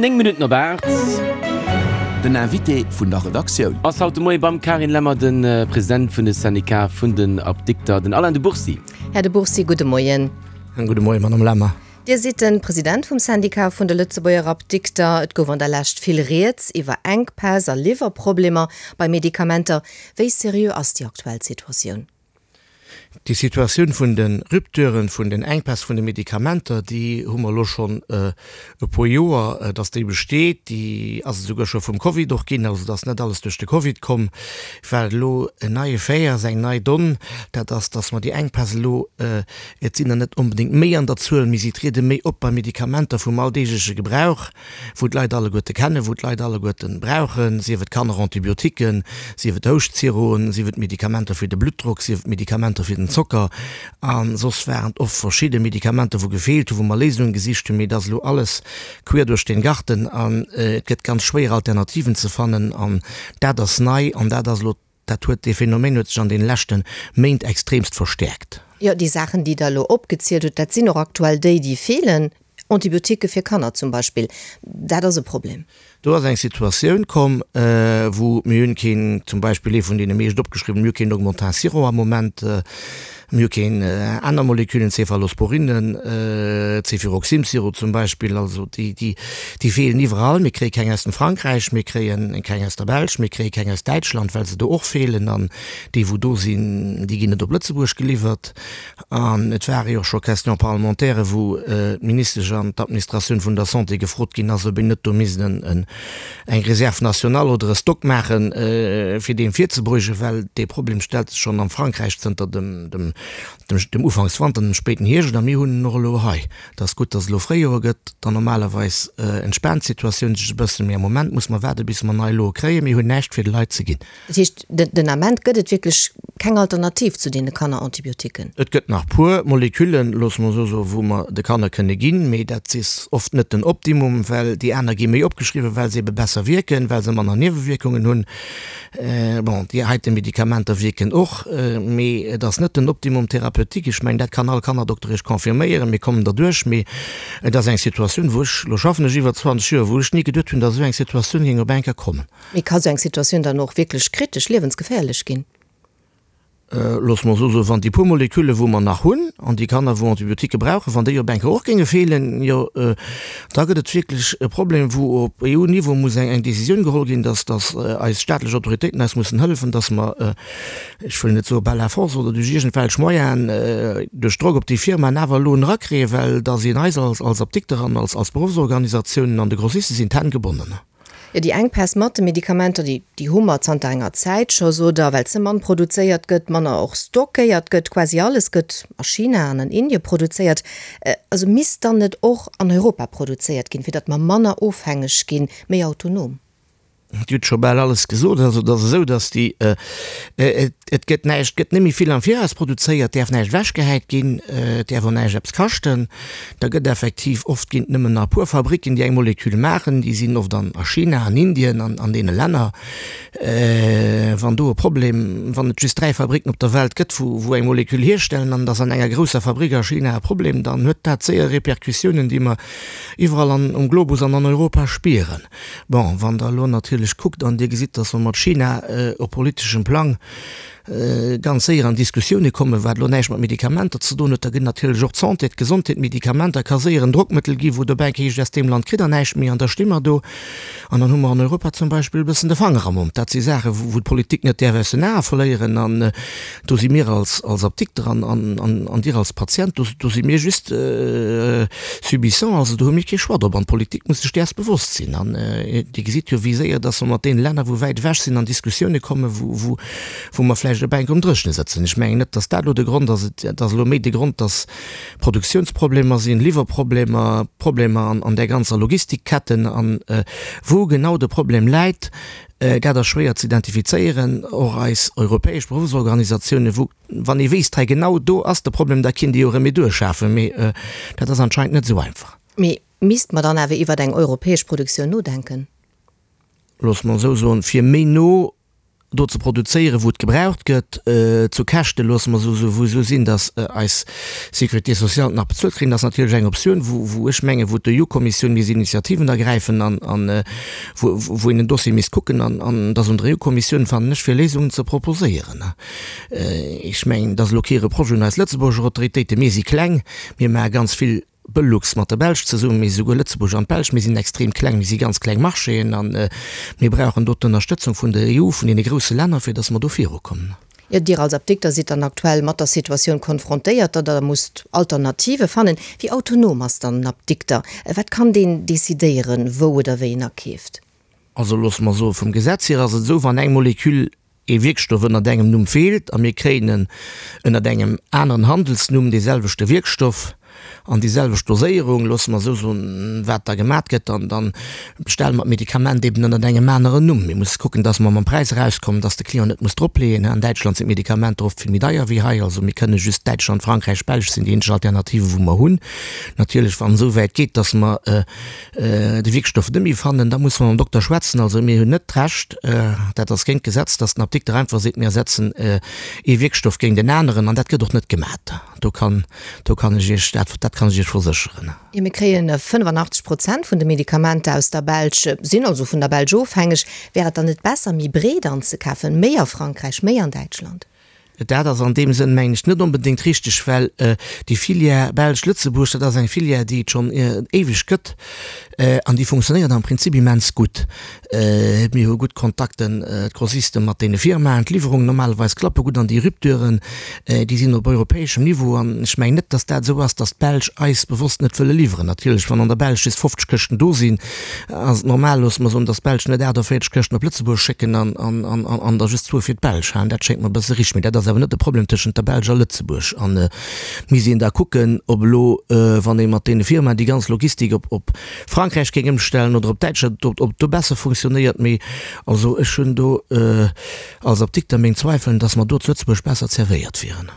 9 Minutten op 8. Den Invité vun der Redaktioun. Ass haut de Moie beim Carine Lemmer de President vun de Syndicat vun den Apdikter, den Alain de Bourcy. Här de Bourcy, gudde Moien. En gudde Moien, Madame Lemmer. Dir sidd de President vum Syndicat vun de Lëtzebuerger Apdikter. Et gouf an der Lescht vill Rieds iwwer Enkpäss a Liwwerproblemer bei Medikamenter. Wéi seriö ass déi aktuell Situatioun? Déi Situatioun vun de Rupturen, vun den Enkpäss vun de Medikamenter, déi hu mer elo schonn e puer Joer, dass déi besteet. Déi ass esouguer scho vum Covid och ginn. Also et ass net alles duerch de Covid komm. Wat elo en neie Fait ass, eng nei Donn, dat ass, dass mer déi Enkpäss elo, et sinn der net onbedéngt méi an der Zuel, mee si triede méi op bei Medikamenter vum alldeegleche Gebrauch. wou d'Leit alleguerte kennen, wou d'Leit alleguerte brauchen, sief et Kannerantibiotiquen, sief et Houschtsiroen, sief et Medikamenter fir de Bluttdrock, sief et Medikamenter fir den Zocker. A soss waren et oft verschidde Medikamenter, wou gefeelt hunn, wou mer Léisungen gesicht hunn. Mee et ass elo alles quer duerch den Garten an et gëtt ganz schwéier Alternativen ze fannen. An dat ass nei an dat ass elo Dat huet, dee Phänomen huet sech an deene leschte Méint extremst verstäerkt. Jo, déi Saachen, déi Der elo opgezielt hutt, dat sinn och aktuell déi, déi feelen. Antibiotiquë fir Kanner zum Beispill, dat ass e Problem. Do ass eng Situatioun komm, wou mir hunn keen, zum Beispill ee vun deene meescht opgeschriwwenen, mir hu keen Augmentin Sirop am Moment, Mir hu keen aner Moleküllen, Cephalosporinen, Cefuroxim-Sirop zum Beispill, also déi, déi, déi feelen iwwerall. Mir kréie keng aus dem Frankräich, mir kréie keng aus der Belsch, mir kréie keng aus Däitschland, well se do och feelen. An déi, wou do sinn, déi ginn net op Lëtzebuerg geliwwert. An et ware jo och scho Questions parlementaires, wou d'Ministesch an d'Administratioun vun der Santé gefrot ginn ass, ob een net do misst en, eng Réserve nationale oder e Stock maachen, fir deem virzebeugen, well dee Problem stellt sech schonn am Frankräich zënter dem, dem, dem Ufankswanter, dem spéiten Hierscht, a mir hunn en och elo hei. Et ass gutt, datt et elo Fréijoer gëtt, dann normalerweis entspaant d'Situatioun sech e bëssen, mee am Moment muss mer waarde bis mer nei Loe kréien. Mir hunn näischt fir de Leit ze ginn. Dat heescht, den Ament gëtt et wierklech keng Alternativ zu deene Kannerantibiotiquen? Et gëtt nach puer Moleküllen, loosse mer esou soen, wou mer de Kanner kënne ginn, mee dat is oft net den Optimum, well déi aner gi méi opgeschriwwen, well se ebe besser wierken, well se manner Niewewierkungen hunn. Bon, déi heite Medikamenter wierken och, mee et ass net den Optimum thérapeutique. Ech mengen, dat kann all Kannerdokter Iech confirméieren. Mir kommen derduerch, mee et ass eng Situatioun, wou ech, elo schaffen ech iwwer 20 Joer, wou ech ni geduet hunn, datt esou eng Situatioun géing op eng Kéier kommen. Mee ka sou eng Situatioun dann och wierklech kritesch, liewensgeféierlech ginn? Loosse mer esou soen, wann déi puer Molekülle wou mer nach hunn, an déi Kanner wou Antibiotiquë brauchen, wann déi op eng Kéier och géinge feelen, jo da gëtt et wierklech e Problem, wou op EU-Niveau muss eng Décisioun geholl ginn, dass dass eis staatlech Autoritéiten eis mussen hëllefen, dass mer, ech wëll net soe par la force oder duerch iergendwelch Moyenen, duerch Drock op déi Firmaen awer elo en erakréien, well da sinn eis als als Apdikter an als als Beruffsorganisatiounen an de Grossiste sinn d'Hänn gebonnen. Jo, déi Enkpäss mat de Medikamenter, déi, déi hu mer zanter enger Zäit scho, sot Der, well ze mann produzéiert gëtt, manner och stockéiert gëtt. Quasi alles gëtt a China an an Indie produzéiert. Also misst dann net och an Europa produzéiert ginn, fir datt mer manner ofhängeg ginn, méi autonom? Dir hutt scho bal alles gesot. Also et ass esou, datt déi, et gëtt näischt, et gëtt net méi vill am Viraus produzéiert, et däerf näischt ewechgehäit ginn, et däerf och näischt eppes kaschten. Da gëtt effektiv, oft ginn et nëmmen nach e puer Fabricken, déi eng Molekül maachen, déi sinn oft an a China, an Indien, an an deene Länner. Wann do e Problem, wann et just 3 Fabricken op der Welt gëtt, wou wou eng Molekül hierstellen an et ass an enger grousser Fabrik a China e Problem, dann huet dat séier Repercussiounen, déi mer iwwerall an um Globus an an Europa spieren. Bon, wann Der elo natierlech kuckt an Dir gesitt, datt mer mat China op politeschem Plang ganz séier an Diskussioune kommen, wat elo näischt mat Medikamenter ze doen huet, da gëtt natierlech och d'Santé, d'Gesondheet, d'Medikamenter ka séier en Drockmëttel ginn, wou dobäi heescht, aus deem Land kritt Der näischt méi an da sti mer do an dann hu mer an Europa zum Beispill e bëssen de Fanger am Mond. Dat si Saachen, wou d'Politik net däerf aus den Ae verléieren an do si mir als Apdikter an an Dir als Patient, do do si mir just subissant, also do hu mir kee Choix drop an d'Politik muss sech däers bewosst sinn an Dir gesitt jo, wéi séier dass mer mat deene Länner, wou wäit ewech sinn, an Diskussioune kommen, wou wou wou mer vläicht op enk um Dréchne sëtzen. Ech mengen net, dass dat elo de Grond ass. Et ass elo méi de Grond, dass Produktionsproblemer sinn, Liwwerproblemer, Problemer an an där ganzer Logistikketten. An wou genau de Problem läit, dat ass schwéier ze identifizéieren. Och eis europäesch Beruffsorganisatiounen, wou, wann ee wéisst, hei genau do ass de Problem, da kinnt ee jo Remedur schafen. Mee dat ass anscheinend net esou einfach. Mee misst mer dann awer iwwert eng europäesch Produktioun nodenken? Loosse mer esou soen, fir méi no. Do ze produzéieren, wou et gebraucht gëtt, zu Käschte, loosse mer esou soen, wou esou sinn, datt eis Sécurité sociale et nach bezuelt kréien, ass natierlech eng Optioun, wou, wou ech mengen, wou d'EU-Kommissioun misst Initiativen ergräifen an, an wou, wou een den Dossier misst kucken an, an et ass un der EU-Kommissioun, fannen ech, fir Léisungen ze proposéieren. Ech mengen, et ass elo kee Reproche un eis Lëtzebuerger Autoritéiten. Mir si kleng, mir maache ganz vill Belux mat der Belsch zesummen, mee esouguer Lëtzebuerg an d'Belsch, mir sinn extrem kleng, mir si ganz kleng Marchéen a mir brauchen do d'Ënnerstëtzung vun der EU, vun deene grousse Länner, fir datt mer do virukommen. Jo, Dir als Apdikter sidd dann aktuell mat der Situatioun konfrontéiert, datt Der musst Alternative fannen. Wéi autonom ass dann en Apdikter? Wat kann deen decidéieren, wou oder wéi en akeeft? Also loosse mer soen, vum Gesetz hier ass et esou, wann eng Moleküll ee Wierkstoff ënnert engem Numm feelt a mir kréien en ënnert engem aneren Handelsnumm, dee selwechte Wierkstoff an déi selwecht Doséierung, loosse mer esou soen, wat da gemat gëtt, dann, dann bestelle mer d'Medikament eben ënnert engem aneren Numm. Mir musse kucken, dass mer mam Präis erauskommen, dass de Client net muss dropleeën. An Däitschland sinn d'Medikamenter oft vill méi deier wéi hei. Also mir kënne just Däitschland, Frankräich, Belsch sinn déi eenzeg Alternativen, wou mer hunn. Natierlech, wann et esou wäit geet, dass mer de Wierkstoff net méi fannen, da musse mer mam Dokter schwätzen. Also mir hunn net d'Recht, dat ass géint d'Gesetz, datt den Apdikter einfach seet, mir ersetzen ee Wierkstoff géint en aneren, an dat gëtt och net gemat. Do kann, do kann ech Iech, dat, dat kann ech Iech versécheren. Jo, mir kréie 85 Prozent vun de Medikamenter aus der Belsch, sinn also vun der Belsch ofhängeg. Wär et dann net besser, méi breet anzekafen, méi a Frankräich, méi an Däitschland? Dat ass an deem Sënn, mengen ech, net onbedéngt richteg, well déi Filière Belsch-Lëtzebuerg, dat ass eng Filière, déi et schonn éiweg gëtt an déi funktionéiert am Prinzip immens gutt. Mir hu gutt Kontakten, d'Grossiste mat deene Firmaen, d'Liwwerungen normalerweis klappe gutt an déi Rupturen, déi sinn op europäeschem Niveau an ech mengen net, datt dat esou ass, datt d'Belsch eis bewosst net wëlle liwweren. Natierlech, wann an der Belsch just 50 Këschten do sinn, Ass et normal, loosse mer soen, datt d'Belsch net 48 Këschten op Lëtzebuerg schécken an der just zwou fir d'Belsch halen? Dat schéngt mer e bësse richteg. Mee dat ass awer net de Problem tëschent der Belsch a Lëtzebuerg. An et misst een da kucken, ob elo, wann ee mat deene Firmaen déi ganz Logistik op op Frankräich géing ëmstellen oder op Däitschland, ob ob do besser funktionéiert. Mee also ech hunn do als Apdikter meng Zweifelen, datt mer do zu Lëtzebuerg besser zerwéiert wieren.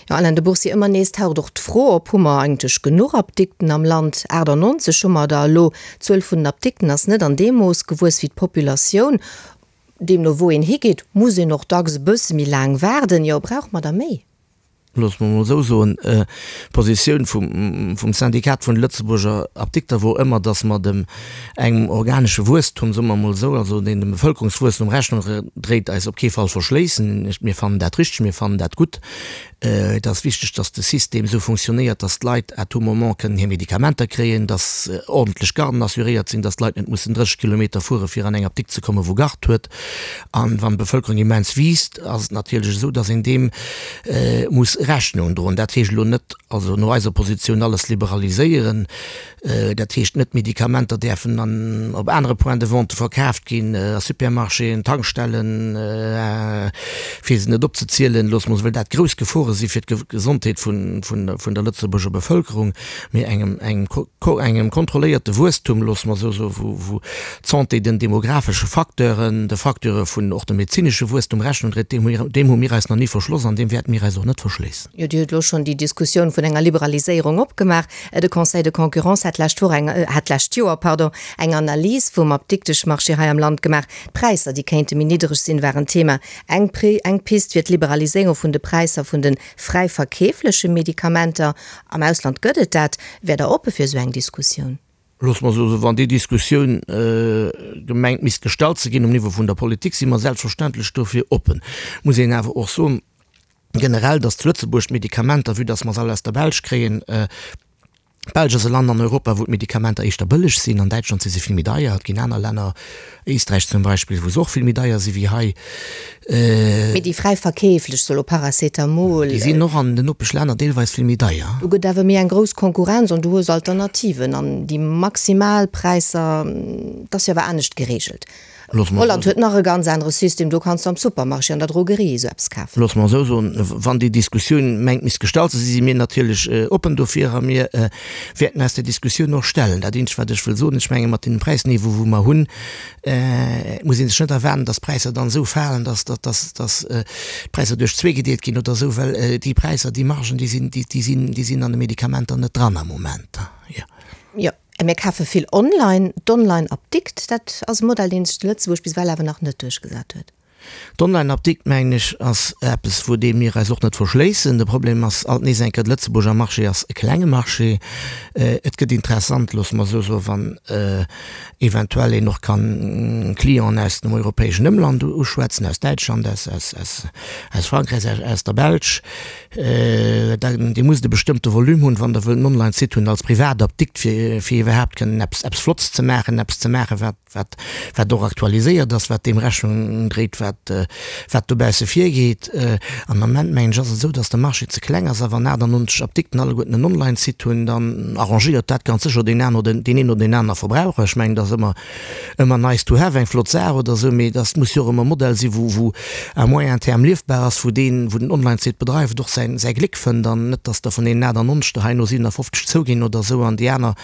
Jo, Alain de Bourcy, ëmmer nees taucht och d'Fro op, Hu mer eigentlech genuch Apdikten am Land? 98 hu mer der elo. D'Zuel vun den Apdikten ass net an deem Mooss gewuess wéi d'Populatioun. Deemno wou een higeet, muss een och dacks e bësse méi laang waarden. Jo, brauche mer der méi? Loosse mer emol esou soen, D'Positioun vum Syndikat vun de Lëtzebuerger Apdikter wor ëmmer, datt mer dem engem organesche Wuesstum, soe mer emol esou, also deen dem Bevëlkerungswuesstum Rechnung dréit, eis op kee Fall verschléissen. Mir fannen dat richteg, mir fannen dat gutt. Et ass wichteg, dass de System esou funktionéiert, dass d'Leit à tout moment kënnen hir Medikamenter kréien, dass ordentlech Garden assuréiert sinn, dass d'Leit net mussen 30 Kilometer fuere fir an eng Apdikt ze kommen, wou Gard huet. An wann d'Bevëlkerung immens wiisst, ass et natierlech esou, dass een deem muss Rechnung droen. Dat heescht elo net, also no eiser Positioun, alles liberaliséieren. Dat heescht net, d'Medikamenter däerfen an op anere Points de vente verkaaft ginn, a Supermarchéen, Tankstellen, fir se net opzezielen, loosse mer, well dat grouss Gefore si fir d'Gesondheet vun der Lëtzebuerger Bevëlkerung, mee engem engem kontrolléierte Wuesstum, loosse mer esou soen, wou wou d'Santé den demographesche Facteuren, de Facteure vun och dem medezinesche Wuesstum Rechnung dréit, deem hu deem hu mir eis nach ni verschloss an deem wäerte mir eis och net verschléissen. Jo, Dir hutt elo schonn déi Diskussioun vun enger Liberaliséierung opgemaach. De Conseil de concurrence hat d'lescht Woch eng, hat d'lescht Joer, pardon, eng Analys vum Apdikteschmarché hei am Land gemaach. D'Präisser, déi kéinte méi niddereg sinn, war en Thema. Eng eng Pist wier d'Liberaliséierung vun de Präisser vun de fräi verkeefleche Medikamenter. Am Ausland gëtt et dat. Wäert Der oppe fir esou eng Diskussioun? Loosse mer soen, wann déi Diskussioun gemengt misst gestallt ze ginn um Niveau vun der Politik, si mer selbstverständlech dofir oppen. Muss een awer och soen, generell, dass zu Lëtzebuerg d'Medikamenter, vue dass mer se all aus der Belsch kréien, d'Belsch ass e Land an Europa, wou d'Medikamenter éischter bëlleg sinn, an Däitschland si se vill méi deier, et ginn aner Länner, Éisträich zum Beispill, wou se och vill méi deier si wéi hei. Mee déi fräi verkeeflech, sou elo Paracetamol. Déi sinn och an den Nopeschlänner deelweis vill méi deier. Do gëtt awer méi eng grouss Konkurrenz an du hues Alternativen an déi Maximalpräisser, dat ass jo awer anescht gereegelt. Holland huet nach e ganz anere System, do kanns du am Supermarché, an der Drogerie esou eppes kafen. Loosse mer esou soen, wann déi Diskussioun mengt misst gestallt ze sinn, si mir natierlech oppen dofir a mir wäerten eis där Diskussioun och stellen. Dat eenzegt wat ech wëll soen, ech menge mat deem Präisniveau wou mer hunn, muss ee sech net erwaarden, datt d'Präisser dann esou falen, datt d'Präisser duerch zwee gedeelt ginn oder esou, well déi Präisser, déi Margen, déi sinn, déi sinn, déi sinn an de Medikamenter net dran am Moment. Jo. Mir kafe vill online. D'Online-Apdikt, dat ass e Modell, dee sech zu Lëtzebuerg bis ewell awer nach net duerchgesat huet. D'Online-Apdikt, mengen ech, ass eppes, wou deem mir eis och net verschléissen. De Problem ass alt nees eng Kéier, de Lëtzebuurger Marché ass e klenge Marché. Et gëtt interessant, loosse mer esou soen, wann eventuell een och kann Clienten aus dem europäeschen Ëmland uschwätzen, aus Däitschland, aus, aus, aus, aus Frankräich, aus, aus der Belsch. Da, Dir musst e bestëmmte Volume hunn, wann Der wëllt en Online-Site hunn als Privatapdikt, fir, fir iwwerhaapt kënnen eppes, eppes Flottes ze maachen, eppes ze maachen, wat, wat, wat och aktualiséiert ass, wat deem Rechnung dréit, wat, wat dobausse virgeet. Am Ament, mengen ech, ass et esou, dass de Marché ze kleng ass a wann 98 Apdikten alleguerten en Online-Site hunn, dann arrangéiert dat ganz sécher deen aner oder deen een oder deen aner Verbraucher. Ech mengen, dat ass ëmmer, ëmmer nice to have, eng flott Saach oder esou, mee dass muss jo och ëmmer e Modell sinn, wou, wou à moyen terme liefbar ass, wou deen, wou den Online-Site bedreift, och säin, säi Gléck fënnt an net, dass der vun deenen 98 der herno 57 zouginn oder esou an déi aner,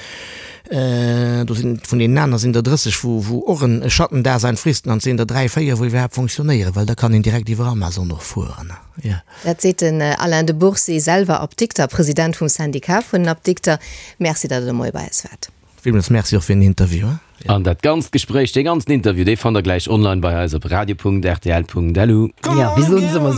Do sinn, vun deenen aner sinn der 30, wou, wou och en Schattendasein fristen, an et sinn der 3, 4, wou iwwerhaapt fonctionnéieren, well da kann een direkt iwwer Amazon och fueren, jo. Dat seet den Alain de Bourcy, selwer Apdikter, President vum Syndicat vun den Apdikter. Merci, datt Der de Moie bei eis waart. Villmools Merci och fir den Interview. An dat ganzt Gespréich, dee ganzen Interview, dee fannt der gläich online bei eis op radio.rtl.lu. Jo, wéi soen se ëmmer?